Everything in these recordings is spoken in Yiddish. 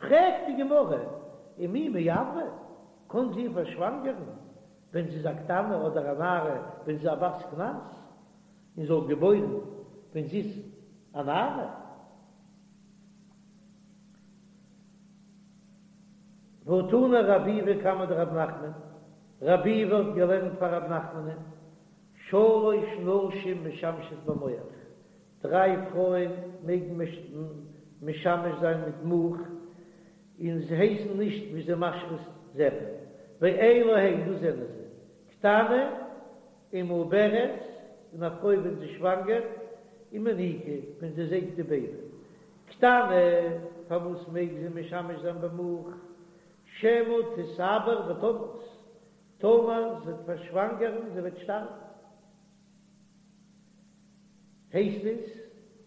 פרעגט די גמרא, ומי מעברא, קען זי פארשוואנגערן ווען זי איז א קטנה אדער א נערה ווען זי איז א בת קנס, און זאל געבוירן ווען זי איז א נערה? והא תנא רב ביבי קמיה דרב נחמן, רב ביבי האט געלערנט פאר רב נחמנ'ן, שלש נשים משמשות במוך, דריי פרויען מעגן משמש זיין מיט מוך, און זיי הייסן נישט ווי זיי משחית זרע, ואלו הן, דאס זענען זיי, קטנה ומעוברת, און א פרוי ווען זי שוואנגערט, ומניקה, ווען זי זייגט די בעיבי. קטנה, פארוואס מעג זי משמש זיין במוך? שמא תתעבר ותמות, טאמער זי וועט פארשוואנגערן זי וועט שטארבן. הייסט עס,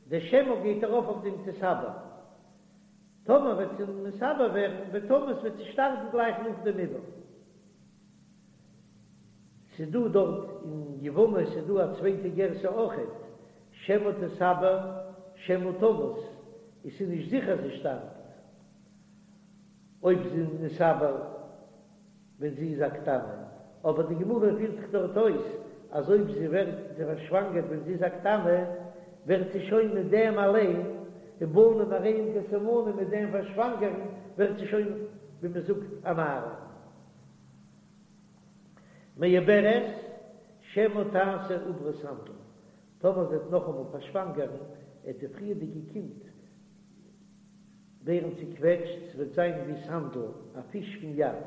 די שמא גייט ארויף אויף דעם תתעבר. טאמער וועט זי מתעבר ווערן ותמות וועט זי שטארבן גלייך נאך דעם עיבור. ס'דא דארט אין יבמות איז דא א צווייטע גירסא אויכעט, שמא תתעבר שמא תמות, עס איז נישט זיכער זי שטארבט אויב זי איז נתעבר ווען זי איז א קטנה, אבער די גמרא פירט זיך דארט אויס אז אויב זי ווערט זי פארשוואנגערט ווען זי איז א קטנה ווערט זי שוין מיט דעם אליין, ובנים הרי הם כסימנים מיט דעם פארשוואנגערן ווערט זי שוין ווי מען זאגט א נערה. מעוברת שמא תעשה עוברה סנדל, טאמער זי וועט נאכאמאל פארשוואנגערן עט די פריערדיגע קינד ווערן צוקוועטשט, ס'וועט זיין ווי סנדל, א פיש פון ים,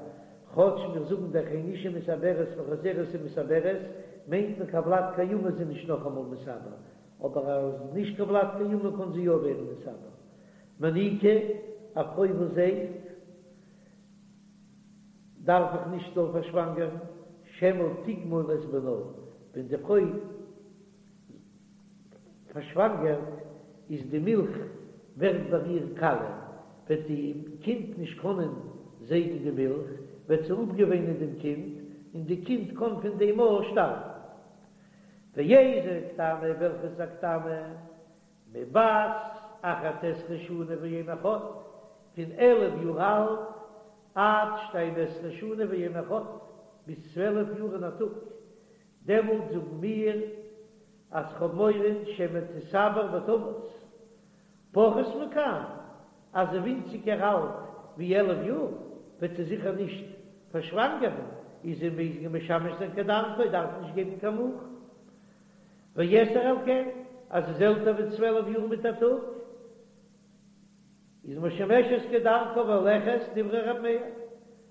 כאטש מיר זאגן דאך אין אשה מתעברת וחוזרת ומתעברת, מיינט מען קיין ולד קיימא איז זי נישט נאכאמאל מתעבר, אבער אז נישט קיין ולד קיימא קען זי יא ווערן מתעבר. מניקה, א פרוי וואס זייגט. דארף איך נישט זאל פארשוואנגערן, שמא תגמול את בנה, ווען די פרוי פארשוואנגערט איז די מילך ווערט ביי איר קאליע, וועט די קינד נישט קענען זייגן די מילך, וועט זי אפגעוויינען דעם קינד, און די קינד קען פון דעם אויך שטארבן. ואיזו קטנה, וועלכע איז א קטנה? מבת אחת עשרה שנה ויום אחד, פון 11 יאר אלט עד שתים עשרה שנה ויום אחד, ביז 12 יאר און א טאג, דעמאלט זאגן מיר אז כ'האב מורא שמא תתעבר ותמות, פחות מכאן, אז זי ווינציגער אלט ווי 11 יאר, וועט זי זיכער נישט פארשוואנגערן, איז זי מעג משמש זיין כדרכה, דארף נישט געבן קיין מוך. ויתר על כן, אז זי איז עלטער ווי 12 יאר מיט א טאג, איז משמשת כדרכה והולכת דברי ר' מאיר,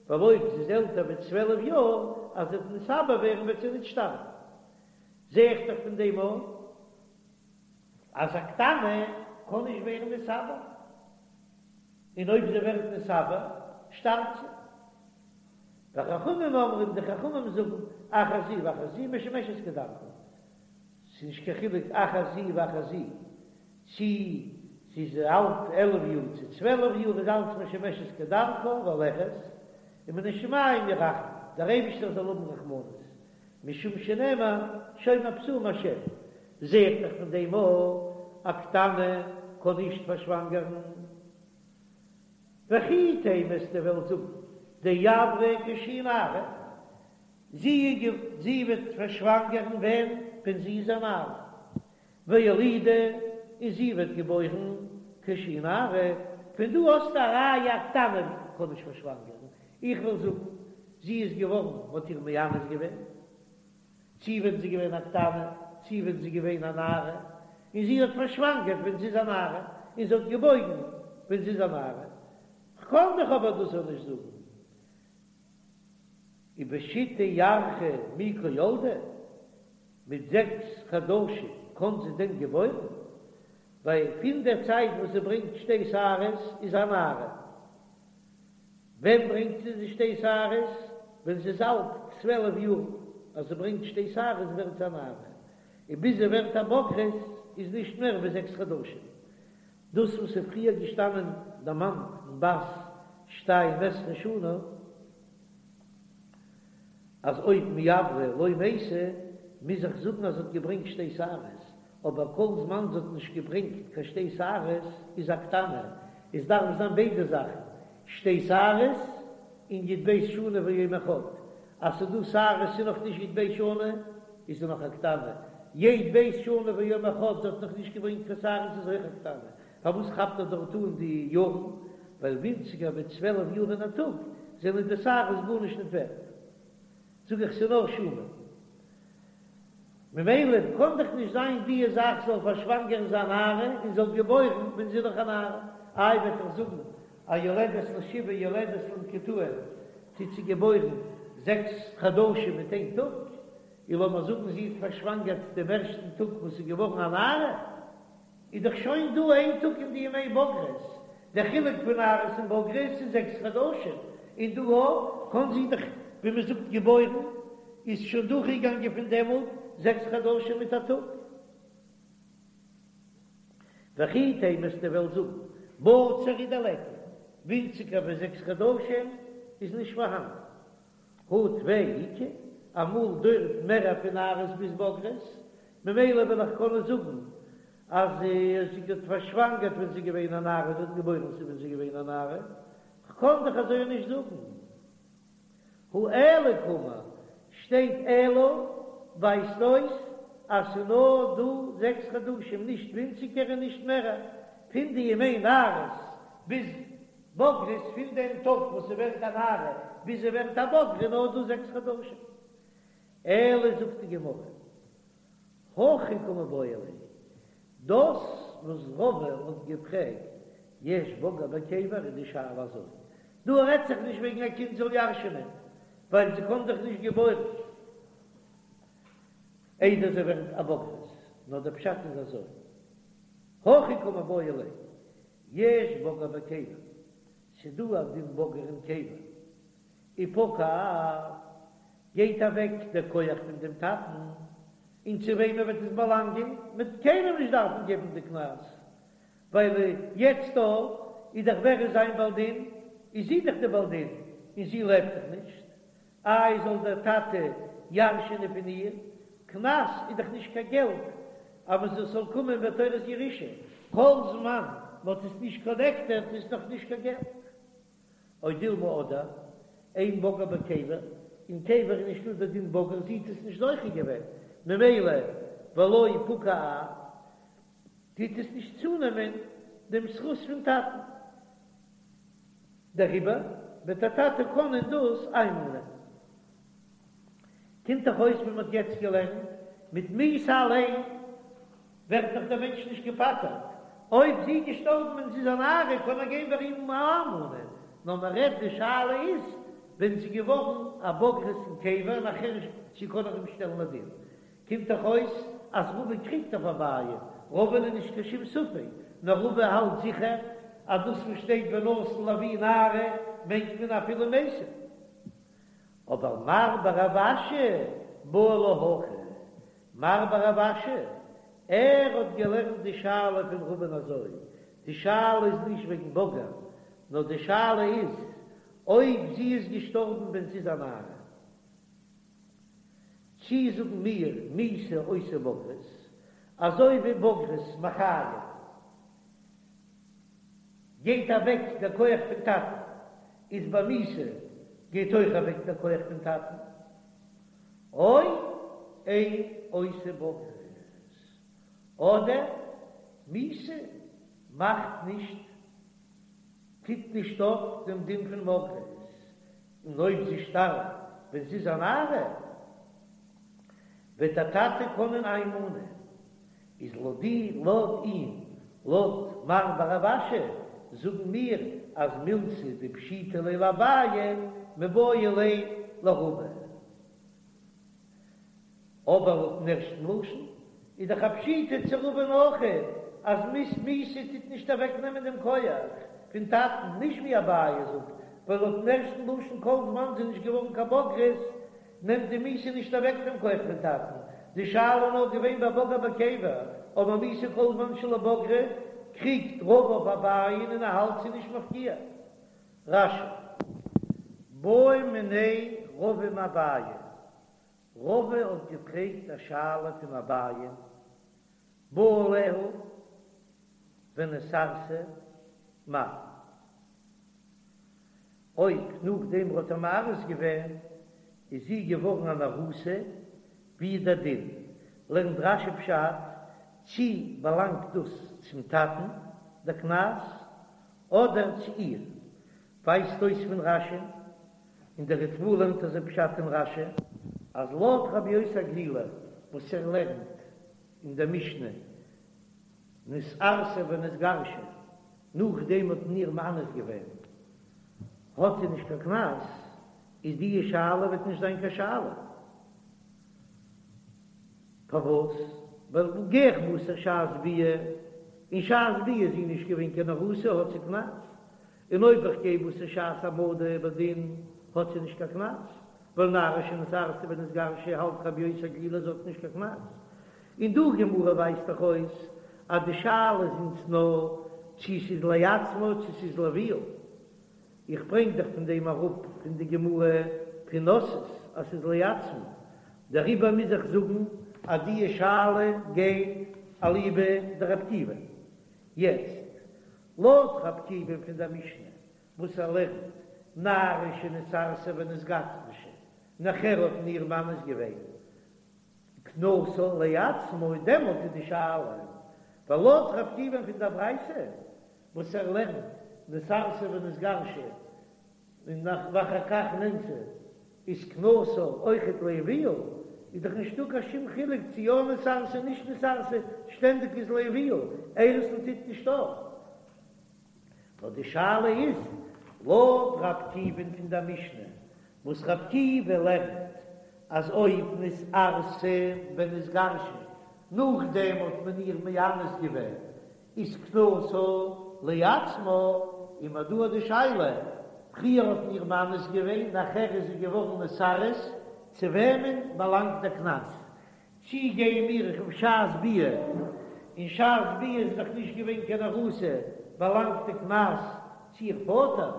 ווייל אויב זי איז עלטער ווי 12 יאר, אז זי וועט נתעבר ווערן וועט זי ניט שטארבן. זע איך דאך פון דעם אן אז א קטנה קען נישט ווערן נתעבר, און אויב זי ווערט נתעבר שטארבט זי. וחכמים אומרים, די חכמים זאגן, אחת זו ואחת זו משמשת כדרכה, ס'איז נישט קיין חילוק אחת זו ואחת זו, צי זי איז אלט 11 יאר צו 12 יאר איז אלץ משמשת כדרכה והולכת, ומן השמים ירחמו, דער אייבישטער זאל האבן רחמנות, משום שנאמר שומר פתאים השם, זע איך דאך פון דעם אויך א קטנה קען נישט פארשוואנגערן. וכי תימא וועסטו וועלן זאגן דעברה כשהיא נערה, זי זי וועט פארשוואנגערן ווען ווען זי איז א נערה, ואולידה און זי וועט געבוירן כשהיא נערה, פון דא האסטו א ראיה א קטנה קען נישט פארשוואנגערן, איך וועל זאגן זי איז געווארן מ'האט איר מאנס געווען. צי ווען זי איז געווען א קטנה, צי ווען זי איז געווען א נערה, און זי האט פארשוואנגערט ווען זי איז א נערה, און זי האט געבויגן ווען זי איז א נערה. כ'קען דאך אבער דאס אויך נישט זאגן. ובשיתא ירחי מי קא ילדה, מיט זעקס חדשים קען זי דען געבוירן? ווייל פון דער צייט וואס זי ברענגט שתי שערות איז א נערה. ווען ברענגט זי די שתי שערות? ווען זי איז אלט 12 יאר, אז זי ברענגט שתי שערות ווערט זי א נערה, און ביז זי ווערט א בוגרת איז נישט מער ווי זעקס חדשים. דאס וואס איז פריער געשטאנען דערמאנט אין בת שתים עשרה שנה, אז אויב מעברא לא מתה, מוז איך זאגן אז זי האט געברענגט שתי שערות, אבער כל זמן זי האט נישט געברענגט קיין שתי שערות איז א קטנה, עס דארף זיין ביידע זאכן. שתי שערות און י"ב שנה ויום אחד, אז ס'איז דא שערות ס'איז נאך נישט י"ב שנה איז זי נאך א קטנה, י"ב שנה ויום אחד זי האט נאך נישט געברענגט קיין שערות איז אויך א קטנה, פארוואס כאפט ער דארט אן די יארן? ווייל ווינציגער ווי 12 יאר און א טאג זענען די שערות גארנישט ניט ווערט. זאג איך ס'איז נאר שנה. ממילא קאן דאך נישט זיין די זאך זאל פארשוואנגערן זיין נערה און זאל געבוירן ווען זי איז נאך א נערה. איי וועט ער זאגן א יולדת לשבעה יולדת למקוטעין טוט זי געבוירן זעקס חדשים מיט איין טאג, און לאמיר זאגן זי האט פארשוואנגערט דעם ערשטן טאג וואס איז געווארן א נערה, איז דאך שוין דא איין טאג אין די ימי בגרות, דער חילוק פון נערות און בגרות איז זעקס חדשים, און דא אויך קאן זי דאך ווי מען זאגט געבוירן איז שוין דורכגעגאנגען פון דעמאלט זעקס חדשים מיט א טאג. וכי תימא וועסטו וועלן זאגן בציר הוא דליכא, ווינציגער ווי זעקס חדשים איז נישט פארהאן. הא טפי איכא, אמאל דויערט מער פון נערות ביז בגרות, ממילא וועל איך קענען זאגן אז זי האט פארשוואנגערט ווען זי איז געווען א נערה, זי האט געבוירן ווען זי איז געווען א נערה, כ'קען דאך אזוי נישט זאגן. הא אלא קאמר, שטייט אלא ווייזט אויס אז ס'איז נאר דא זעקס חדשים נישט ווינציגער און נישט מערער, פון די ימי נערות ביז בגרות, פון דעם טאג וואס זי ווערט א נערה ביז זי ווערט א בוגרת איז נאר דא זעקס חדשים. אלא זאגט די גמרא, הכי קא מיבעיא ליה, דאס וואס רבא האט געפרעגט יש בגר בקבר איז די שאלה אזוי, דא רעדט זיך נישט וועגן א קינד זאל ירש'נען, ווייל זי קען דאך נישט געבוירן איידער זי ווערט א בוגרת, נאר דער פשט איז אזוי, הכי קא מיבעיא ליה, יש בגר בקבר, ס'דא א דין בגר אין קבר, ופקע אב, גייט אוועק דער כח פון דעם טאטן, און צו וועמען וועט עס באלאנגען? מ'וועט קיינעם נישט דארפן געבן די קנס, ווייל יעצט דא איז דאך ווער איז זיין בעל דין? איז זי דאך די בעל דין, און זי לעבט דאך נישט, איי זאל דער טאטע ירש'ענען פון איר? קנס איז דאך נישט קיין געלט אז מען זאל קומען בתורת ירושה, כל זמן מען האט עס נישט קאלעקטעט איז נאך נישט קיין געלט. או דילמא אדער, אין בגר בקבר, אין קבר איז נישטא דער דין בגר, זי האט עס נישט זוכה געווען, ממילא ולא פקע אב, טוט עס נישט צונעמען דעם זכות פון טאטן, דעריבער וועט דער טאטע קענען דאס איינמאנען. קומט דאך אויס ווי מען האט יעצט געלערנט, מיט מיתה אליין ווערט דאך דער מענטש נישט געפטר'ט, אויב זי איז געשטארבן ווען זי איז א נערה קען ער גיין ביי אים איינמאנען, נאר מען רעדט די שאלה איז ווען זי איז געווארן א בוגרת אין קבר נאכער צו קען ער אים שטעלן לדין, קומט דאך אויס אז רבא קריגט אויף אביי, רבא'ן איז נישט קיין שום ספק, נאר רבא האלט זיכער אז דאס וואס שטייט ונתן לאבי נערה מיינט מען אפילו מתה. אבער מר בר רב אשי בעי לה הכי, מר בר רב אשי, ער האט געלערנט די שאלה פון רבא'ן אזוי, די שאלה איז נישט וועגן בגר, נאר די שאלה איז אויב זי איז געשטארבן ווען זי איז א נערה, צי זאגן מיר מיתה עושה בגרות, אזוי ווי בגרות מחיים גייט אוועק דער כח פון טאטן, איז ביי מיתה גייט אויך אוועק דער כח פון טאטן, או אין עושה בגרות, אדער מיתה מאכט נישט, טוט נישט אויף דעם דין פון בגרות, און אויב זי שטארבט ווען זי איז א נערה, וועט דער טאטע קענען איינמאנען, איז לויט די לויט אים, לויט מר בר רב אשי, זאגן מיר אז מילתא דפשיטא ליה לאביי מיבעיא ליה לרבא. אבער לויטן ערשטן לשון איז דאך א פשיטא צו רבא'ן אויכעט אז מיתה טוט נישט אוועקנעמען דעם כח פון טאטן, נישט ווי אביי זאגט, ווייל לויטן ערשטן לשון כל זמן זי איז נישט געווארן קיין בוגרת נעמט די מיתה נישט אוועק דעם כח פון טאטן, די שאלה איז נאר געווען ביי בגר בקבר, אבער מיתה כל זמן שלא בגרה קריגט רבא אויף אביי'ן און ער האלט ס'איז נישט מפקיע. רש"י. בעא מיניה רבא מאביי, רבא האט געפרעגט א שאלה פון אביי, בא עליה ונתארסה מהו. אויב נאכדעם האט ער מארס געווען איז זי געווארן אן ארוסה, ווי איז דער דין? לערנט רש"י פשט, צי באלאנגט דאס צום טאטן דער קנס אדער צו איר? ווייזט אויס פון רש"י, און דער ריטב"א לערנט אזוי פשט אין רש"י, אז לויט רבי יוסי הגלילי וואס ער לערנט אין דער משנה נתארסה ונתגרשה, נאכדעם האט מען איר מאנס געווען, האט זי נישט קיין קנס, איז די שאלה וועט נישט זיין קיין שאלה. פארוואס? ווייל גיי איך בתר שעת ביאה, און שעת ביאה איז זי נישט געווען קיין ארוסה האט זי קנס, און אויב איך גיי בתר שעת העמדה בדין האט זי נישט קיין קנס, ווייל נערה שנתארסה ונתגרשה האלט רבי יוסי הגלילי זי האט נישט קיין קנס. און דא גמרא ווייזט דאך אויס אז די שאלה איז אונז נאר צו ס'איז לעצמה צו ס'איז לאביה. איך ברענג דאך פון דעם אראפ פון די גמרא פון נשאת אז ס'איז לעצמה, דעריבער מוז איך זאגן אז די שאלה גייט אליבא דרבי עקיבא. יעצט, לויט רבי עקיבא פון דער משנה וואס ער לערנט נערה שנתארסה ונתגרשה, נאכער האט מען איר מאנס געווען קנסה לעצמה, דעמאלט איז די שאלה, ווייל לויט רבי עקיבא פון דער ברייתא וואס ער לערנט נתארסה ונתגרשה און נאך ואחר כך נאנסה איז קנסה אויכעט לאביה, איז דאך נישטא קיין שום חילוק צו יא נתארסה נישט נתארסה, שטענדיג איז לאביה, אירוסין טוט נישט אויף. נאר די שאלה איז לויט ר' עקיבא'ן פון דער משנה, וואס ר' עקיבא לערנט אז אויב נתארסה ונתגרשה נאכדעם האט מען איר מאנס געווען איז קנסה לעצמה, און מ'האט דא די שאלה, פריער האט מען איר מאנס געווען נאכער איז זי געווארן נתארס, צו וועמען באלאנגט דער קנס? צי גייען מיר אויף שעת ביאה, און שעת ביאה איז דאך נישט געווען קיין ארוסה, באלאנגט די קנס צו איר פאטער,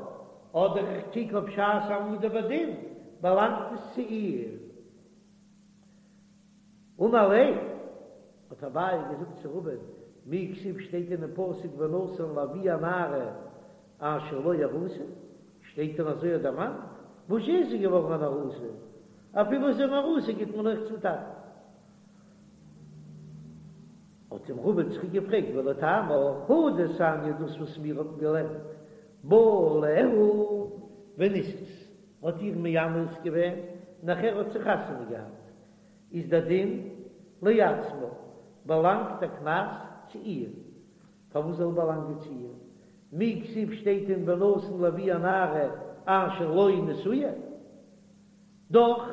אדער איך קוק אויף שעת העמדה בדין, באלאנגט עס צו איר? אמר ליה, האט אביי געזאגט צו רבא'ן, מי כתיב שטייט אינעם פסוק ונתן לאבי הנערה אשר לא ארוסה, שטייט דען אזוי דערמאנט? וואס איז זי געווארן אן ארוסה? אפילו זי איז אן ארוסה גיט מען אויך צום טאטן. האט אים רבא צוריק געפרעגט ולטעמיך הא דתניא דאס וואס מיר האבן געלערנט בא עליה ונישאת האט איר מאנס געווען נאכער האט זי חתונה געהאט איז דער דין לעצמה באלאנגט דער קנס צו איר פארוואס זאל באלאנגען צו איר? מי כתיב שטייט דען ונתן לאבי הנערה אשר לא נשואה? דאך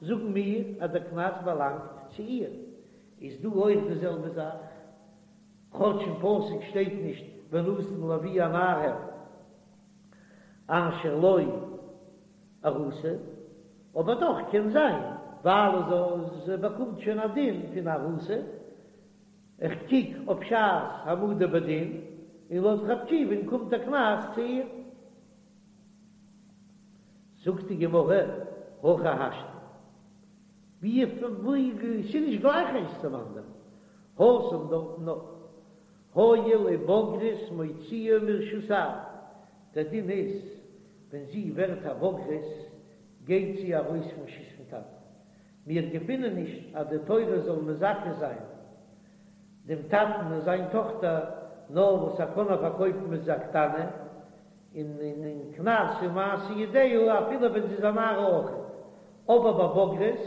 זאגן מיר אז דער קנס באלאנגט צו איר. איז דא אויך די זעלבע זאך, כאטש אין פסוק שטייט נישט ונתן לאבי הנערה אשר לא ארוסה, אבער דאך קען זיין ווייל זי באקומט שוין א דין פון ארוסה. איך קוק אויף שעת העמדה בדין, און לויט ר' עקיבא'ן קומט דער קנס צו איר. זאגט די גמרא, הכי השתא, ווי ס'איז נישט גלייך איינס צום אנדערן, התם דארטן נאר הואיל ובוגרת מוציאה מרשות האב, דער דין איז ווען זי ווערט א בוגרת גייט זי ארויס פון רשות פון טאטן, מיר געפינען נישט אז די תורה זאל מזכה זיין דעם טאטן און זיין טאכטער נאר וואס ער קען איר פארקויפן ווען זי איז א קטנה, און און קנס און מעשה ידיה אפילו ווען זי איז א נערה אויכעט, אבער ביי בוגרת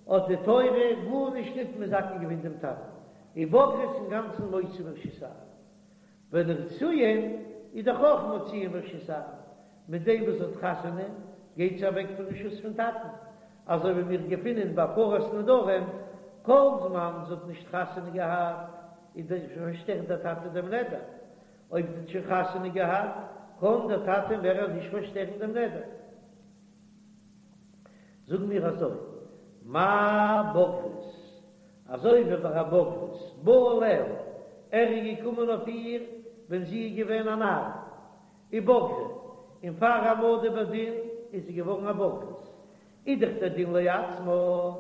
האט די תורה גארנישט ניט מזכה געווען דעם טאטן, און בוגרת אינגאנצן מוציא מרשות האב. ונשואין איז דאך אויך מוציאה מרשות האב, מיט דעם וואס זי האט חתונה גייט זי אוועק פון רשות פון טאטן, אזוי ווי מיר געפינען ביי הפרת נדרים, כל זמן זי האט נישט חתונה געהאט איז דאך פארשטערט דער טאטע דעם נדר, אויב זי האט שוין חתונה געהאט קען דער טאטע מער נישט פארשטערן דעם נדר. זאגן מיר אזוי, מה בוגרת, אזוי ווי ביי א בוגרת, בא עליה, ער איז געקומען אויף איר ווען זי איז געווען א נערה, ובגרה, און פאר העמדה בדין איז זי געווארן א בוגרת, איז דאך דער דין לעצמה,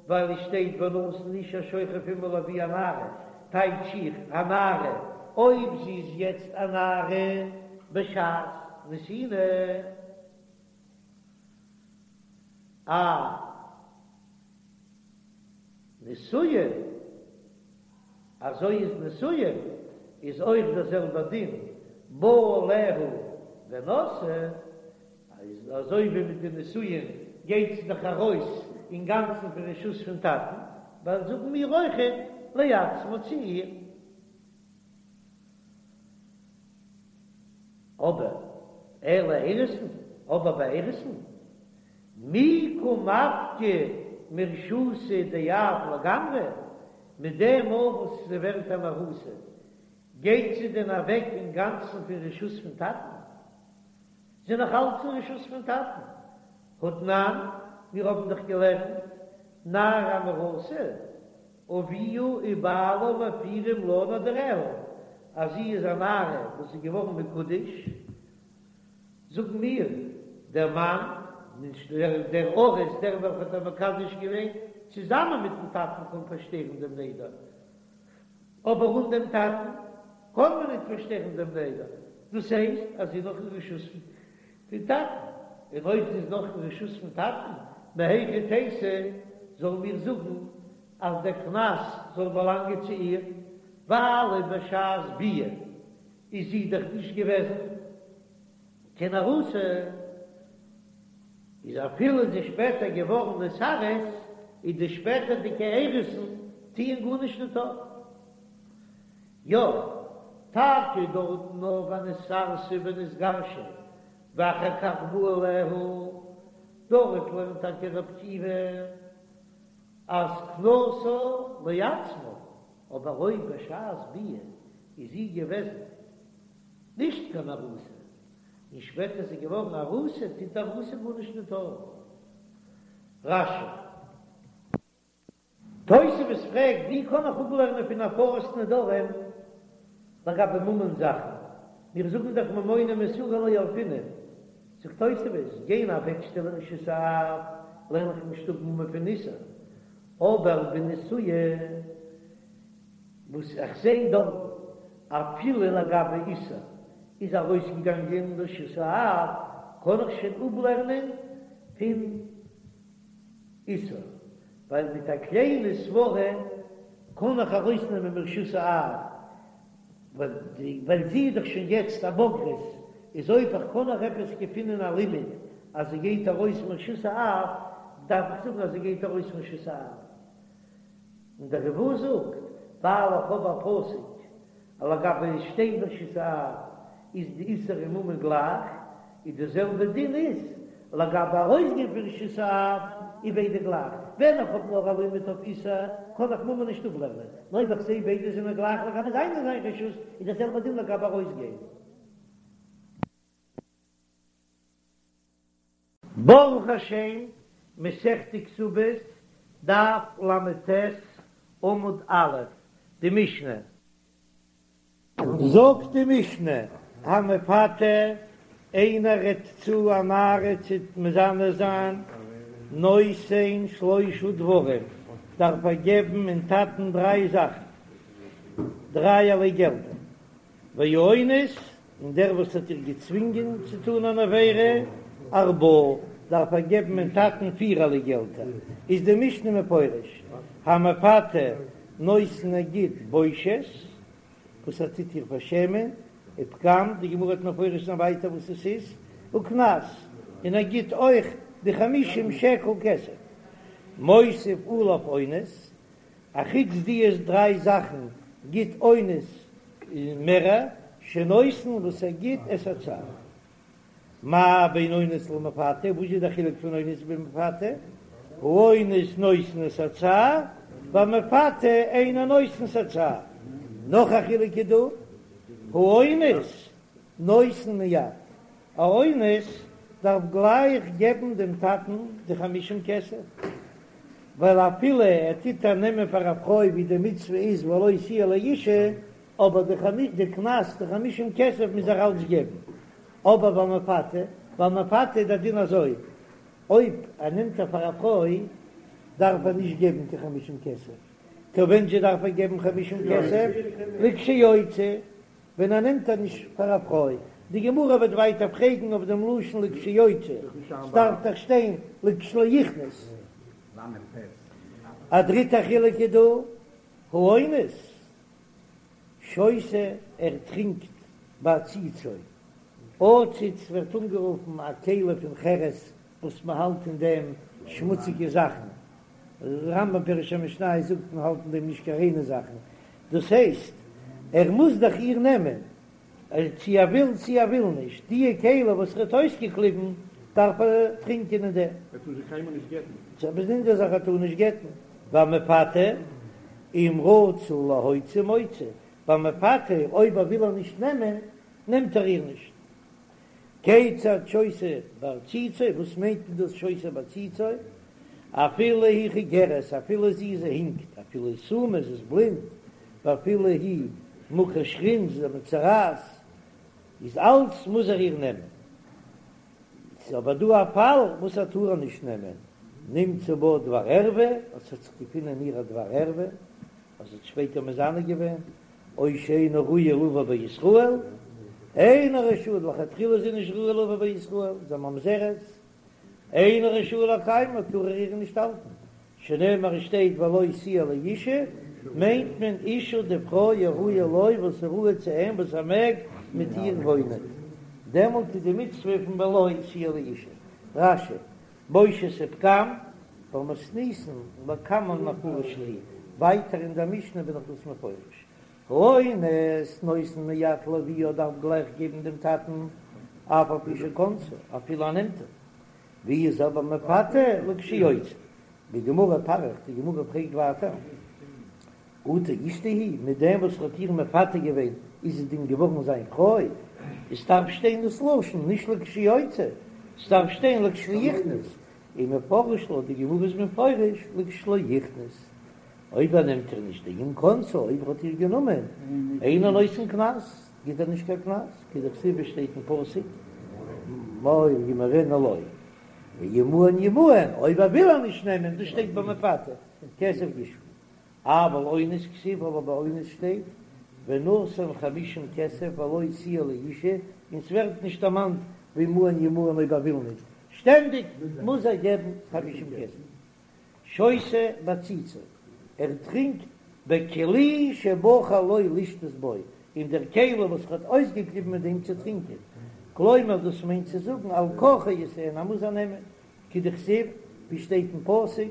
ווייל עס שטייט ונתן איש השוכב עמה לאבי הנערה, טייטש איך הנערה, אויב זי איז יעצט א נערה בשעת נתינה. א נשואה, אזוי איז נשואה איז אויך דער זעלבער דין בא עליה ונשאה, איז אזוי ווי מיט די נישואין גייט זי דאך ארויס אינגאנצן פון רשות פון טאטן, ווייל זאגן מיר אויכעט לעצמה צו איר. אבער אלא אירוסין, אבער ביי אירוסין, מי קא מפקא מרשותא דאב לגמרי, מיט דעם מאל וואס זי ווערט אן ארוסה, גייט זי דען אוועק אינגאנצן פון רשות פון טאטן? זי נאך אלץ אין רשות פון טאטן. האתנן, מיר האבן דאך געלערנט, נערה המאורסה, אביה ובעלה מפירים לה נדריה, אז זי איז א נערה וואס איז געווארן מקודש, זאגן מיר, דער מאן, נישט דער ארוס, דער וועלכער האט איר מקדש געווען, צוזאמען מיטן טאטן קען פארשטערן דעם נדר. אבער אן דעם טאטן קען מען ניט פארשטערן דעם נדר, דאס הייסט אז זי איז נאך אין רשות פון טאטן, און אויב זי איז נאך אין רשות פון טאטן, מהיכי תיתי זאלן מיר זאגן אז דער קנס זאל באלאנגען צו איר, ווייל בשעת ביאה איז זי דאך נישט געוועזן קיין ארוסה. איז אפילו איז זי שפעטער געווארן נתארס, איז די שפעטערדיגע אירוסין טוען גארנישט ניט אויף. יא, טאקע דארטן נאר ונתארסה ונתגרשה ואחר כך בא עליה, דארט לערנט טאקע רבי עקיבא אז קנסה לעצמה, אבער אויב בשעת ביאה איז זי געוועזן נישט קיין ארוסה, און שפעטער איז זי געווארן ארוסה, טוט די ארוסה גארנישט ניט אויף. רש"י. תוספות פרעגט, ווי קען איך אפלערנען פון הפרת נדרים לגבי ממון זאכן? מיר זאגן דאך ממונא מאיסורא לא ילפינן. זאגט תוספות, גיין אוועקשטעלן רשות האב, לערן איך נישט אפ ממון פון איסור, אבער בנשואה וואס איך זע דארט אפילו לגבי איסור איז ארויסגעגאנגען רשות האב, קען איך שוין אפלערנען פון איסור, ווייל מיט א קליינע סברה קען איך ארויסנעמען מרשות האב, ווייל זי איז דאך שוין יעצט א בוגרת, איז אויב איך קען נאך עפעס געפינען א לימוד אז זי גייט ארויס מרשות האב, דארף איך זאגן אז זי גייט ארויס מרשות האב. און דער ריב"א זאגט, ווייל איך האב א פסוק אז לגבי שטיין ברשות האב איז די איסור און ממון גלייך, איז די זעלבע דין איז לגבי ארויסגיין פון רשות האב איז ביידע גלייך, ווען איך האב נאר א לימוד אויף איסור קען איך ממון נישט אפלערנען, נאר אויב איך זעה ביידע זענען גלייך לגבי זיין אין זיין רשות איז די זעלבע דין לגבי ארויסגיין. ברוך השם, מסכת כתובות, דף ל"ט, עמוד א', די משנה. זאגט די משנה, המפתה, איינער רעדט צו א נערה צו מזנה זיין, נותן שלושה דברים, דארף ער געבן אין טאטן דריי זאכן, דרייערליי געלטער, והאונס, און דער וואס האט איר געצווינגען צו טאן אן עבירה, ארבעה, דארף ער געבן אין טאטן פירערליי געלטער, איז די משנה מפרש, המפתה נותן ער גיט בושת, וואס ער טוט איר פארשעמען, ופגם, די גמרא וועט מפרש זיין ווייטער וואס עס איז, וקנס, און ער גיט אויך די חמישים שקל כסף, מוסיף עליו אונס, אחוץ די דריי זאכן גיט אונס מערער שנותן וואס ער גיט את הצער. מה בין אונס למפתה, וואס איז די חילוק פון אונס ביז מפתה? האונס נותן את הצער, והמפתה אינו נותן את הצער. נאך א חילוק איז דא, האונס נותן מיד, א אונס דארף גלייך געבן דעם טאטן די חמישים כסף, ווייל אפילו ער טוט איר נעמען פאר א פרוי ווי די מצוה איז ולו תהיה לאשה, אבער די קנס די חמישים כסף מוז ער אלץ געבן. אבער והמפתה, והמפתה איז דער דין אזוי, אויב ער נעמט איר פאר א פרוי דארף ער נישט געבן קיין חמישים כסף, טא ווען זשע דארף ער געבן חמישים כסף? לכשיוציא. ווען ער נעמט איר נישט פאר א פרוי. די גמרא וועט ווייטער פרעגן אויף דעם לשון לכשיוציא, ס'דארף דאך שטיין לכשלא יכנוס. א דריטע חילוק איז דא, האונס שותה ער טרינקט בעציצו, עציץ ווערט אנגערופן א כלי פון חרס וואס מען האלט אין דעם שמוציגע זאכן, רמב"ם פירוש המשניות זאגט מען האלט אין דעם נישט קיין ריינע זאכן, דאס הייסט ער מוז דאך איר נעמען, צו ער וויל צו ער וויל נישט, דיע כלי וואס ער האט אויסגעקליבן דארף ער טרינקען אין דעם. ער טאר זי קיינמאל נישט גט'ן. ס'איז א באזונדערע זאך ער טאר נישט גט'ן, והמפתה אם רצה להוציא מוציא, והמפתה אויב ער וויל איר נישט נעמען נעמט ער איר נישט. כיצד שותה בעציצו, וואס מיינט מען דאס שותה בעציצו? אפילו היא חיגרת, אפילו זי איז הינקט, אפילו היא סומא, זי איז בלינד, ואפילו היא מוכת שחין, זי איז א מצרעת, איז אלץ מוז ער איר נעמען. ס'איז אבער דא א פאל וואס ער טאר איר נישט נעמען, נמצא בה דבר ערווה, אז ס'האט זיך געפונען אין איר א דבר ערווה, אז זי האט שפעטער מזנה געווען, או שאינה ראויה לבא בישראל, אינה רשאה, לכתחילה איז זי נישט ראויה לבא בישראל, זי איז א ממזרת, אינו רשאי לקיימה, טאר ער איר נישט האלטן, שנאמר עס שטייט ולו תהיה לאשה, מיינט מען אשה די פרוי הראויה לו וואס איז ראוי צו אים וואס ער מעג מיט איר וואוינען, דעמאלט איז די מצוה פון ולו תהיה לאשה. רש"י, בושת ופגם, במתניתין לקמן מפרש להו, ווייטער אין דער משנה בין איך דאס מפרש. האונס נותן מיד לאביה דארף גלייך געבן דעם טאטן אף על פי שכונסה אפילו ער נעמט איר. ווי איז אבער מפתה לכשיוציא? בגמרא פריך, די גמרא פרעגט ווייטער, אטו אשתו היא, מיט דעם וואס ער האט איר מפתה געווען איז זי דען געווארן זיין פרוי? עס דארף שטיין דאס לשון נישט לכשיוציא, עס דארף שטיין לכשיכנוס, ומפרש לה, די גמרא איז מפרש לכשלא יכנוס, אויב ער נעמט איר נישט דאם כנסה, אויב ער האט איר גענומען, אינו נותן קנס, גיט ער נישט קיין קנס, כדכתיב עס שטייט אין פסוק, מור ימורנה לו, ואם מאן ימאן, אויב ער וויל איר נישט נעמען, דאס שטייט ביי מפתה, כסף ישפה. אבל אונס כתיב אבער ביי אונס שטייט ונתן חמישים כסף ולו תהיה לאשה און ס'ווערט נישט דערמאנט ואם מאן ימאן אויב ער וויל נישט, שטענדיג מוז ער געבן חמישים כסף. שותה בעציצו, ער טרינקט בכלי שבחר לו לשתות בו, אין דער כלי וואס ער האט אויסגעקליבן מיט דעם צו טרינקען, כלומר דאס מיינט צו זאגן על כרחו ישאנה ער מוז איר נעמען, כדכתיב, ווי שטייט אין פסוק,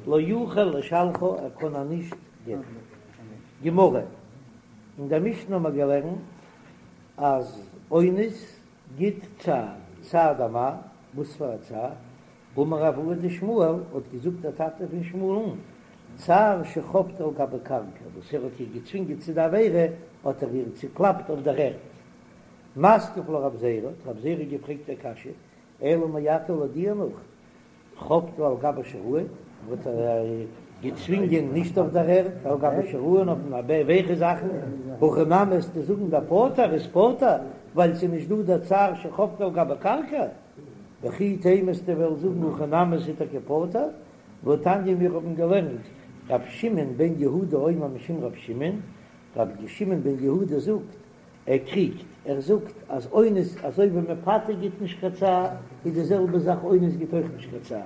לא יוכל לשלחה, ער קען איר נישט גט'ן. גמרא, אין דער משנה האבן מיר געלערנט אז אונס גיט צער, צער דמאי, וואס פאר א צער? אמר אבוה דשמואל, האט געזאגט דער טאטע פון שמואל'ן, צער שחבטה על גבי קרקע, וואס ער האט איר געצווינגען צו די עבירה, האט ער איר צוקלאפט אויף דער ערד. מתקיף לה רב זירא, האט רב זירא געפרעגט א קשיא, אלא מעתה לויט דיר נאך, חבטה על גבי שיראין, האט ער געצווינגען נישט אויף דער ערד, על גבי שיראין אויף ווייכע זאכן, הכי נמי וועסטו זאגן דפטור איז פטור, ווייל ס'איז נישט דא דער צער שחבטה על גבי קרקע, וכי תימא וועסטו וועלן זאגן הכי נמי ס'איז טאקע פטור, והתניא מיר האבן געלערנט ר' שמעון בן יהודה אומר משום ר' שמעון, ר' שמעון בן יהודה זאגט ער קריגט, ער זאגט אז אונס אזוי ווי מפתה גיט נישט קיין צער, איז די זעלבע זאך אונס גיט אויך נישט קיין צער,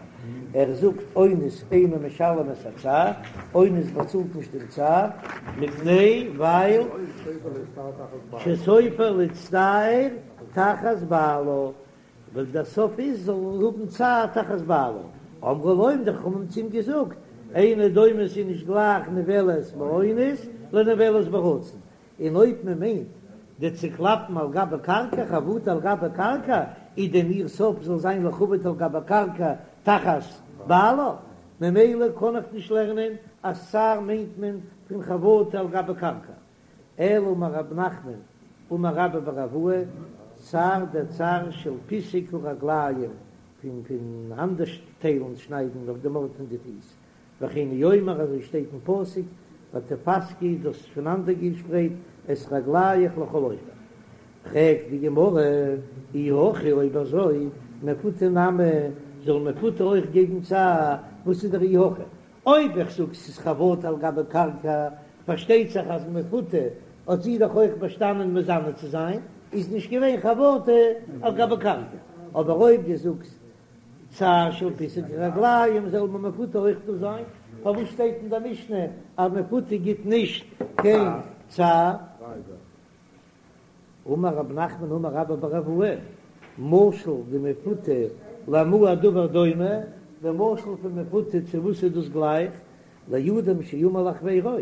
ער זאגט אונס אינו משלם את הצער, אונס באצאלט נישט דעם צער, מפני ווייל שסופה להצטער תחת בעלה, ווייל דער סוף איז זאל האבן צער תחת בעלה, אמרו לו האבן די חכמים צו אים געזאגט, אינו דומה ס'איז נישט גלייך נבעלת באונס לנבעלת ברצון, און אויב מען מיינט די צוקלאפן על גבי קרקע, חבטה על גבי קרקע, איז דען איר סוף זאל זיין לחבוט על גבי קרקע תחת בעלה, ממילא קען איך נישט לערנען אז צער מיינט מען פון חבטה על גבי קרקע. אלא אמר רב נחמן אמר רבה בר אבוה, צער דער צער של פיסוק הרגליים, פון פונאנדערטיילן שניידן אויף דעם ארט פון די פיס, וכן הוא אומר אזוי שטייט אין פסוק ותפסקי דו האסט פונאנדערגעשפרייט את רגליך לכל עובר. פרעגט די גמרא אי הכי אויב אזוי מפותה נמי זאל מפותה אויך געבן צער, וואס איז דער אי הכי? אויב איך זאג ס'איז חבטה על גבי קרקע פארשטייט זיך אז מפותה האט זי דאך אויך באשטאנען מזנה צו זיין. איז נישט געווען חבטה על גבי קרקע, אבער אויב דו זאגסט צער של פיסוק רגליים זאל ביי מפותה אויך דא זיין, פארוואס שטייט אין די משנה אז מפותה גיט נישט קיין צער? אמר רב נחמן אמר רבה בר אבוה, משל דמפותה למה הדבר דומה, די משל פון מפותה צו וואס איז דאס גלייך, לאדם שאמר לחבירו,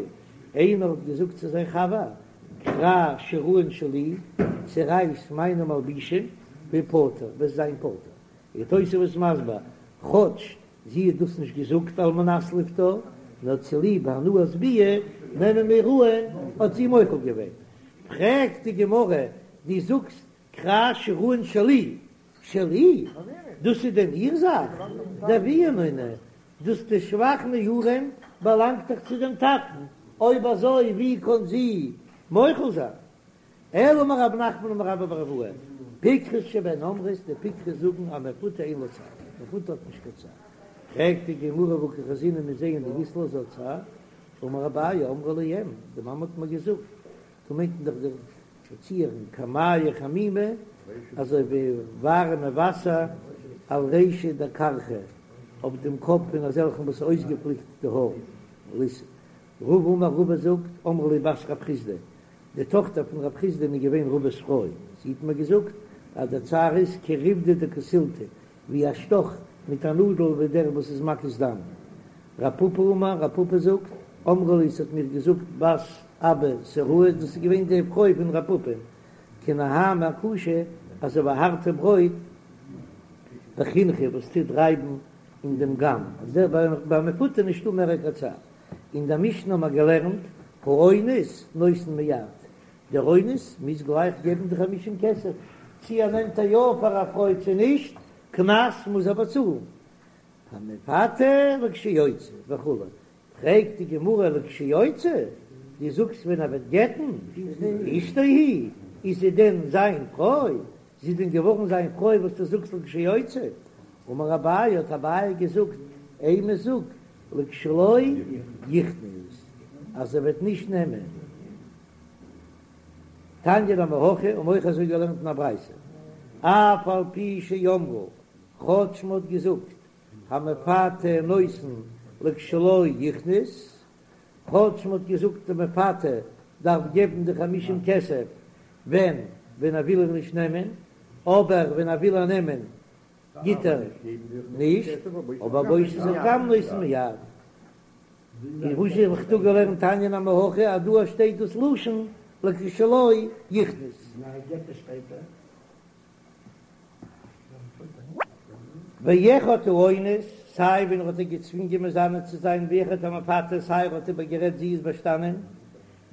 איינער האט געזאגט צו זיין חבר, קרע שיראין שלי, צערייס מיינע מלבישים, והפטר, וועסט זיין פטור. איז תוספות מסביר, כאטש זי האט דאס נישט געזאגט על מנת לפטור, נאר צוליב הנאת ביאה נעמען מיר אן האט זי מוחל געווען. פרעגט די גמרא, דו זאגסט קרע שיראין שלי, שלי? דאס איז דען איר זאך? דאבוה נינהו, דאס די שבח נעורים באלאנגט דאך צו דעם טאטן, אויב אזוי ווי קען זי מוחל זיין? אלא אמר רב נחמן אמר רבה בר אבוה, פיקחות שבהן אומרות, די פיקחות זאגן אז מפותה אין לה צער, מפותה האט נישט קיין צער. פרעגט די גמרא והא קא חזינן מיר זעען דאית לה, זי האט צער, אמר אביי אמרה לי אם, די מאמע האט מיר געזאגט, דא מיינט מען דאך די דערציערין כמיא חמימא, אזוי ווי ווארעמע וואסער על רישא דכרכא, אויף דעם קאפ פון אזעלכן וואס אויסגעפליקט די האר. רבא אמר רבא זאגט, אמרה לי בת רב חסדא, די טאכטער פון רב חסדא איז געווען רבא'ס פרוי, זי האט מיר געזאגט אז דער צער איז כריבדא דקסילתא, ווי א שטאך מיט א נאדל ווי דער וואס איז מקיז דם. רב פפא אמר, רב פפא זאגט, אמרה לי ס'האט מיר געזאגט בת אבא סוראה, דאס איז געווען די פרוי פון רב פפא, כנהמא קשא, אזוי ווי הארטע ברויט בחינכי וואס טוט רייבן אין דעם גאם, אז דער ביי מפותה נישטא מער קיין צער. אין דער משנה האבן מיר געלערנט, האונס נותן מיד, דער אונס מוז גלייך געבן די חמישים כסף, צי ער נעמט איר יא פאר א פרוי צו נישט, קנס מוז ער באצאלן. המפתה לכשיוציא וכו', פרעגט די גמרא לכשיוציא, דו זאגסט ווען ער וועט גט'ן, אשתו היא, איז זי דען זיין פרוי? זי איז דען געווארן זיין פרוי וואס דו זאגסט לכשיוציא? אמר אביי, האט אביי געזאגט, אימא זאג לכשלא יכנוס, אז ער וועט נישט נעמען. תניא נמי הכי, האבן אויך אזוי געלערנט אין א ברייתא, אף על פי שאמרו, כאטש מ'האט געזאגט, המפתה נותן לכשלא יכנוס, כאטש מ'האט געזאגט די מפתה דארף געבן די חמישים כסף ווען ווען ער וויל איר נישט נעמען, אבער ווען ער וויל איר נעמען גיט ער נישט, אבער בושת הפגם נותן מיד. און וואס האב איך דא געלערנט תניא נמי הכי אז דא שטייט דאס לשון לכשלא יכנוס. ואחד האונס, סיי ווען ער האט איר געצווינגען מזנה צו זיין, ואחד המפתה, סיי ער האט איבערגערעדט זי איז באשטאנען,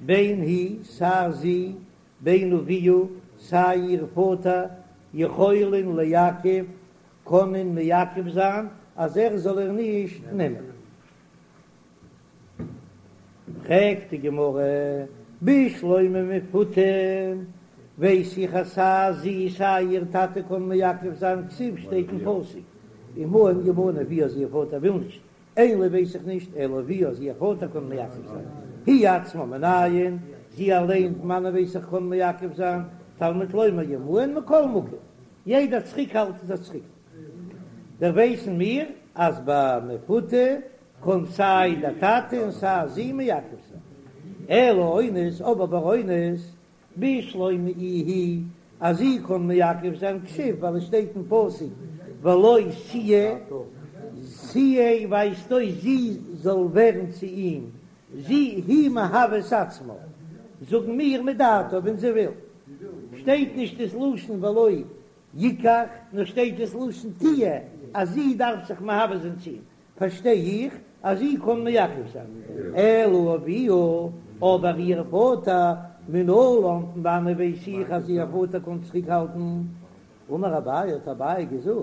בין היא, סיי זי, בין אביה, סיי איר פאטער, יכולין לעכב, קענען מעכב זיין אז ער זאל איר נישט נעמען. פרעגט די גמרא, בשלמא מפותה, ווייס איך אז סיי זי סיי איר טאטע קען מעכב זיין, כתיב שטייט אין פסוק, ומה אם ימנע אביה אז איר פאטער וויל נישט, אין לי ווייס איך נישט, אלא אביה אז איר פאטער קען מעכב זיין, היא עצמה מנין, זי אליין פון וואנען ווייס איך קען מעכב זיין, תלמוד לומר ימאן מכל מקום, יעדע צוריקהאלט איז א צוריקהאלט. דער ווייסן מיר אז ביי מפותה קען סיי דער טאטע און סיי זי מעכב זיין. אלא אונס, אבער ביי אונס, בשלמא איהי, אז זי קען מעכב זיין כתיב ווייל עס שטייט אין פסוק ולו תהיה, תהיה ווייזט אויס זי זאל ווערן צו אים, זי היא מהווה את עצמה, זאגן מיר מדעתה ווען זי וויל, שטייט נישט דאס לשון ולא יקח, נאר שטייט דאס לשון תהיה אז זי דארף זיך מהווה זיין צו אים, פארשטיי איך אז זי קען מעכב זיין, אלא אביה, אבער איר פאטער, מנלן, פון וואנען ווייס איך אז איר פאטער קען צוריקהאלטן? אמר אביי, האט אביי געזאגט,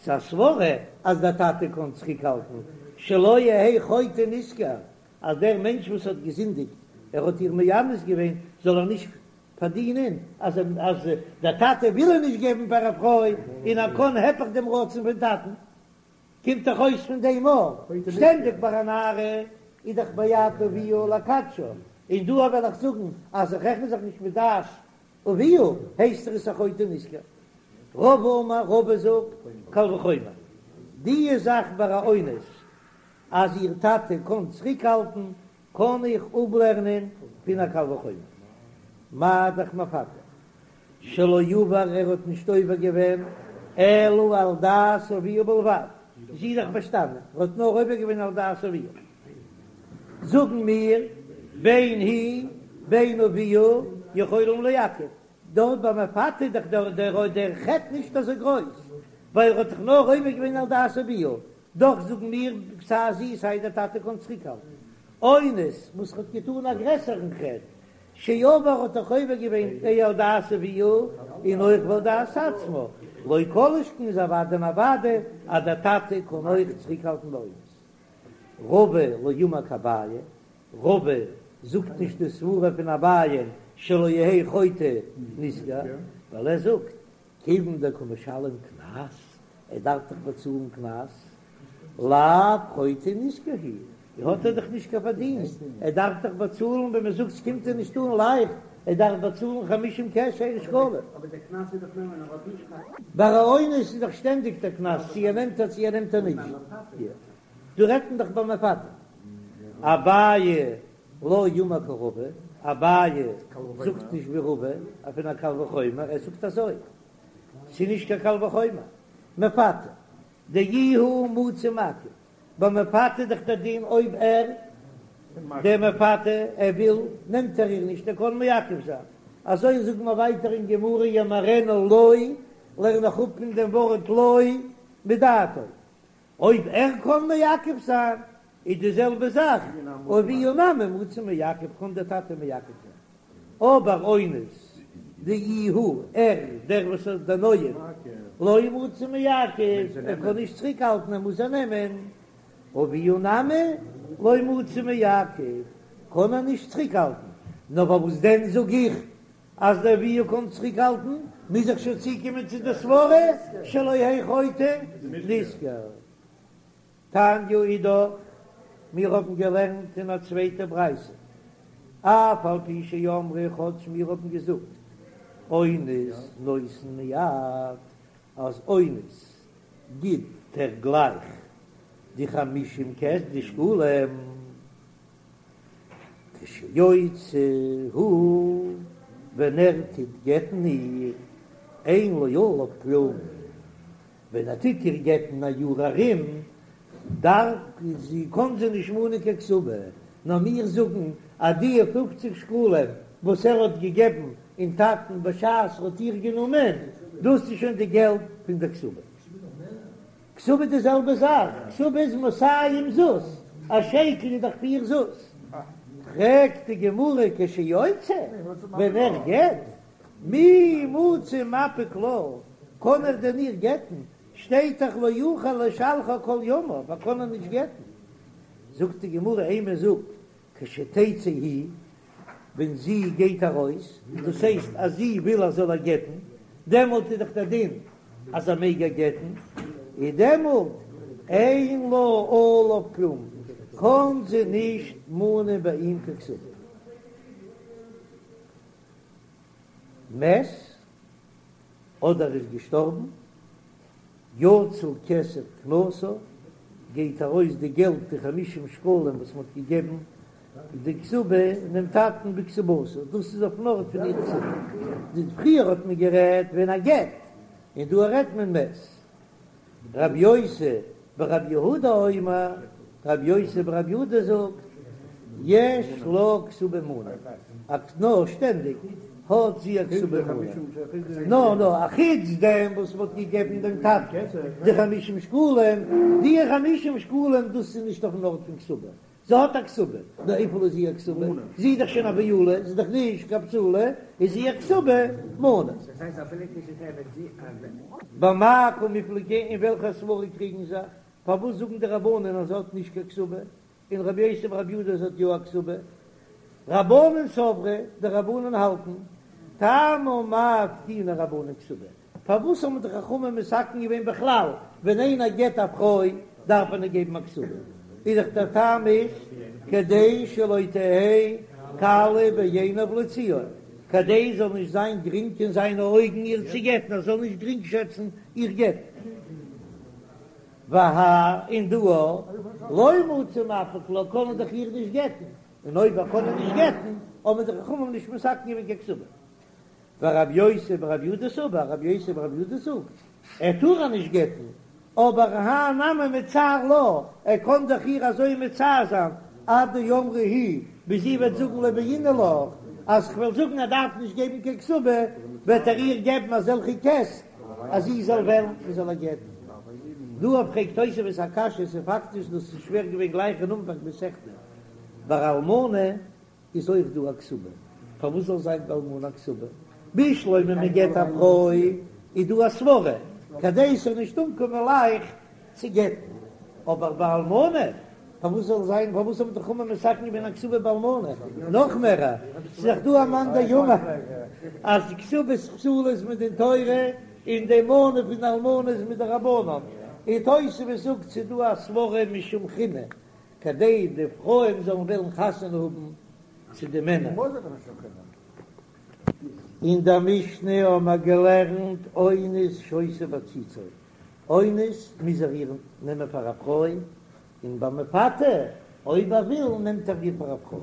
ס'איז א סברא אז דער טאטע קען צוריקהאלטן, שלא יהא חוטא נשכר, אז דער מענטש וואס האט געזינדיגט, ער האט איר מאנס געווען, זאל ער נישט פארדינען, אז אז דער טאטע וויל איר נישט געבן פאר א פרוי, און ער קען היפך דעם רצון פון טאטן. קומט דאך אויס פון דעם אז שטענדיג ביי א נערה איז דאך ביד אביה לקדשה, און דא וועל איך זאגן אז איך רעכן זיך נישט מיט דעת. אביה, הייסט ער עס א חוטא נשכר. רבא אמר, רבא זאגט, קל וחומר, די זאך ביי א אונס אז איר טאטע קען צוריקהאלטן, קען איך אפלערנען פון א קל וחומר. מה דאך מפתה שלא עבר ער האט נישט עובר געווען אלא על דעת אביה בלבד, זי איז דאך באשטאנען, ער האט נאר עובר געווען על דעת אביה, זאגן מיר בין היא בין אביה יכולים לעכב, דארט ביי מפתה איז דאך דער דער חטא נישט אזוי גרויס, ווייל ער האט דאך נאר עובר געווען על דעת אביה, דאך זאגן מיר סיי זי סיי דער טאטע קען צוריקהאלטן אונס וואס האט געטאן א גרעסערן חטא, שעבר האט דאך עובר געווען על דעת אביה און אויך ועל דעת עצמה, לא כל שכן איז אוודאי און אוודאי אז דער טאטע קען אויך צוריקהאלטן ביי אונס. רבא לא אמר כאביי, רבא זאגט נישט די סברה פון אביי שלא יהא חוטא נשכר, ווייל ער זאגט כיוון דקא משלם קנס, ער דארף דאך באצאלן קנס, לאו חוטא נשכר הוא, האט ער דאך נישט קיין פארדינסט, ער דארף דאך באצאלן, ווען מען זאגט ס'קומט אים נישט אן לייכט, ער דארף באצאלן חמישים קעש שקלים. ביי א אונס איז דאך שטענדיג דער קנס, צו ער נעמט איר צו ער נעמט איר נישט. דא רעדט מען דאך ביי מפתה. אביי לא אמר כרבא, אביי זאגט נישט ווי רבא, פון א קל וחומר, ער זאגט אזוי, ס'איז נישט קיין קל וחומר, מפתה דאיהו מצי מעכב, ביי מפתה איז דאך דער דין אויב ער, דער מפתה, ער וויל, נעמט ער איר נישט, ער קען מעכב זיין, אזוי זאגן מיר ווייטער אין גמרא ימהרנה לו, לערן איך אפ פון דעם ווארט לו מדעתו, אויב ער קען מעכב זיין איז די זעלבע זאך, אביה נמי מצי מעכב קען דער טאטע מעכב זיין, אבער אונס דאיהו ער דער וואס איז דער נואף לא מצי מעכב ער קען נישט צוריק האלטן ער מוז איר נעמען, אביה נמי לא מצי מעכב קען ער נישט צוריק האלטן, נאר פארוואס דען זאג איך אז דער אביה קען צוריק האלטן, מוז איך שוין צוקומען צו די סברה שלא יהא חוטא נשכר. תניא אידך, מיר האבן געלערנט אין א צווייטע ברייתא, אף על פי שאמרו כאטש מיר האבן געזאגט אונס נותן מיד, אז אונס גיט ער גלייך די חמישים כסף די שקלים, כשיוצא הוא, ווען ער טוט גט'ן איר, אין לו עליו כלום, ווען ער טוט איר גט'ן א יאר ארום, דארף זי, קען זי נישט מאנען קיין כתובה, נאר מיר זאגן אז די פופציג שקלים וואס ער האט געגעבן אין טאטן בשעת ער האט איר גענומען, דאס איז שוין די געלט פון דער כתובה. כתובה איז די זעלבע זאך, כתובה איז מאתים זוז, א שקל איז דאך פיר זוז. פרעגט די גמרא כשיוצא, ווען ער גט, מי מצי מפיק לה, קען ער דען איר גט'ן, שטייט דאך לא יוכל לשלחה כל ימיו, ער קען איר נישט גט'ן. זאגט די גמרא אימא זאג כשתצא היא, ווען זי גייט ארויס, דאס הייסט אז זי וויל ער זאל איר גט'ן, דעמאלט איז דאך דער דין אז ער מעג איר גט'ן, איז דעמאלט אין לה עליו כלום, קען זי נישט מאנען ביי אים קיין כתובה. מת, אדער איז געשטארבן, יצא כסף קנסה, גייט ארויס די געלט די חמישים שקלים וואס מען האט געגעבן די כתובה דעם טאטן בכתובתה, דאס איז אויפן ארט פון איר כתובה, די פריער האט מען גערעדט ווען ער גט, און דא רעדט מען מת. רב יוסי ברב יהודה אומר, רב יוסי ברב יהודה זאגט, יש לה כתובה מנה, א נאר שטענדיג האט זי א כתובה מנה, נאר נאר א חוץ דעם וואס מ'האט געגעבן דעם טאטן די חמישים שקלים, די חמישים שקלים דאס איז נישט אויפן ארט פון כתובה, זי האט א כתובה, נאר וויפיל איז איר כתובה? זי איז דאך שוין א בעולה, זי איז דאך נישט קיין בתולה, איז איר כתובה מנה. במאי קמיפלגי אין וועלכע סברא קריגן זיך? פארוואס זאגן די רבנן אז זי האט נישט קיין כתובה, און רבי יוסי ברבי יהודה זי האט יא א כתובה? רבנן סברי, די רבנן האלטן, טעמא מאי תקינו רבנן כתובה, פארוואס האבן די חכמים מתקן געווען בכלל ווען איינער גט א פרוי דארף מען איר געבן א כתובה? איז דאך דער טעם איז כדי שלא תהא קלה בעיניו להוציאה. כדי עס זאל נישט זיין גרינג אין זיינע אויגן איר צו גט'ן, ער זאל נישט גרינג שעצן איר גט'ן. והא און דא לא מצי מפיק לה, קען ער דאך איר נישט גט'ן, און אויב ער קען איר נישט גט'ן, האבן די חכמים נישט מתקן געווען קיין כתובה. ורבי יוסי ברבי יהודה סבר, רבי יוסי ברבי יהודה זאגט, ער טאר איר נישט גט'ן, אבער האי נמי מצער לה, ער קען דאך איר אזוי מצער זיין, עד דאמרה היא, ביז זי וועט זאגן לא בעינא לך, אז כ'וועל זאגן ער דארף נישט געבן קיין כתובה, וועט ער איר געבן אזעלכע קעסט אז זי זאל וועלן מען זאל איר גט'ן. דא פרעגט תוספות א קשיא, ס'איז פאקטיש דאס איז שווער געווען גלייך אין אנפאנג מסכתא, ביי אלמנה איז אויך דא א כתובה, פארוואס זאל זיין ביי אלמנה א כתובה? בשלמא מען גט א פרוי איז דא א סברה כדי ס'זאל נישט אנקומען לייכט צו גט'ן, אבער ביי אלמנה פארוואס זאל זיין, פארוואס האבן די חכמים מתקן געווען א כתובה ביי אלמנה? נאך מער, ס'איז דאך דא א מאן דאמר אז כתובת בתולה איז מדין תורה און די מנה פון אלמנה איז מדרבנן, און תוספות זאגט ס'איז דא א סברה משום חינא כדי די פרויען זאלן וועלן חתונה האבן צו די מענער. אין דער משנה האבן מיר געלערנט אונס שותה בעציצו, אונס מוז ער איר נעמען פאר א פרוי, און ביי מפתה אויב ער וויל נעמט ער איר פאר א פרוי.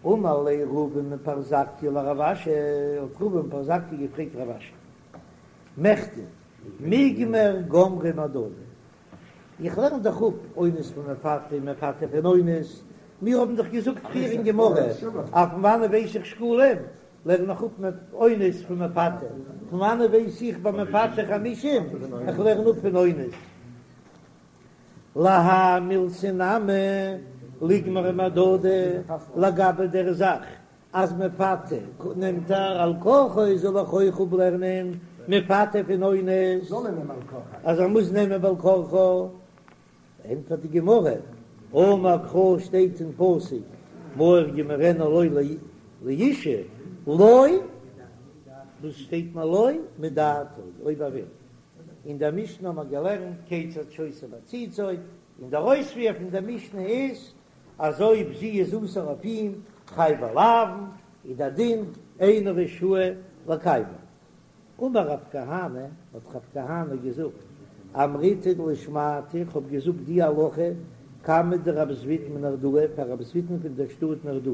אמר ליה רבא מפרזקיא לרב אשי, האט רבא מפרזקיא געפרעגט רב אשי, מכדי מיגמר גמרי מהדדי, איך לערן דאך אפ אונס פון מפתה און מפתה פון אונס, מיר האבן דאך געזאגט פריער אין גמרא אז פון וואנען ווייס איך שקלים, לערן איך אפ אונס פון מפתה, פון וואנען ווייס איך ביי מפתה חמישים, איך לערן אפ פון אונס. להאי מילתא נמי ליגמרו מהדדי, לגבי דער זאך אז מפתה נעמט ער על כרחו זאל איך אויך אפלערנען מפתה פון אונס אז ער מוז נעמען בעל כרחו, ענטפערט די גמרא, אמר קרא שטייט אין פסוק מהר ימהרנה לו לאשה לו, וואס שטייט מיר לו מדעתו אויב ער וויל, אין דער משנה האט מען געלערנט כיצד שותה בעציצו, און דער אויספיר פון דער משנה איז אז אויב זי איז אסור אויף אים חייבי לאוין, איז דער דין אינו רשאי לקיימה. אמר רב כהנא, האט רב כהנא געזאגט, אמריתה לשמעתא, איך האב געזאגט די הלכה קמיה דרב זביד מנהרדעא, פאר רב זבידן פון דער שטאט נהרדעא,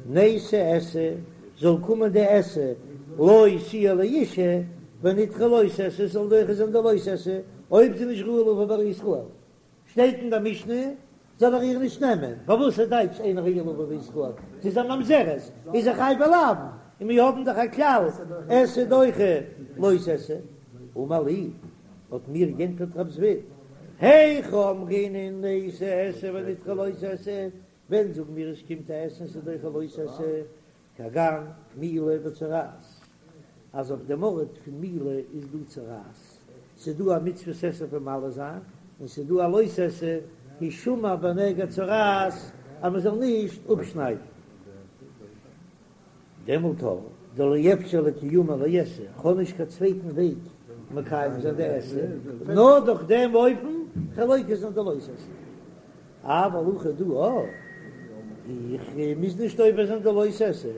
ניתי עשה, זאל קומען די עשה, לא תהיה לאשה, ונדחה לא תעשה, זאל דוחה זיין די לא תעשה, אויב זי איז נישט ראויה לבא בישראל. שטייט אין דער משנה, זאל ער איר נישט נעמען, פארוואס איז טייטש אינה ראויה לבא בישראל? זי איז א ממזרת, איז זי חייבי לאוין, און מיר האבן דאך א כלל, עשה דוחה לא תעשה. אמר לי, האט מיר גענטפערט רב זביד, היכי אמרינן ניתי עשה ונדחה לא תעשה, ווען זאגן מיר עס קומט א עשה און ס'איז דוחה לא תעשה, כגון מילה וצרעת, אז אויף דעם ארט פון מילה איז דא צרעת, ס'איז דא א מצוות עשה פון מל זיין, און ס'איז דא א לא תעשה, השמר בנגע צרעת, אז מ'זאל נישט אפשניידן. דעמאלט הא דלא אפשר לקיומי לעשה, כ'האב נישט קיין צווייטן וועג מקיים זיין די עשה, נאר דורך דעם אופן כ'וועל עובר זיין די לא תעשה. אבל הכא דא אה, איך מוז נישט עובר זיין די לא תעשה,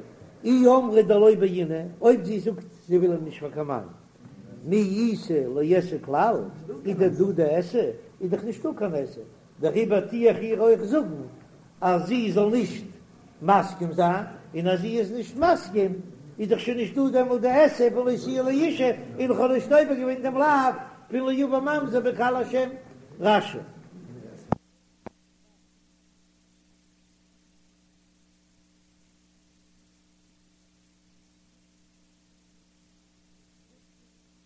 אי אמרה דלא בעינא, אויב זי זאגט זי וויל אים נישט פאר קיין מאן, מי איתא לעשה כלל, איז דען דא די עשה? איז דאך נישטא קיין עשה, דעריבער טו איך איר אויך זאגן אז זי זאל נישט מסכים זיין, און אז זי איז נישט מסכים איז דאך שוין נישטא דעמאלט די עשה פון לא תהיה לאשה, און איך האב נישט עובר געווען דעם לאו פון לא יבא ממזר בקהל השם. רש"י.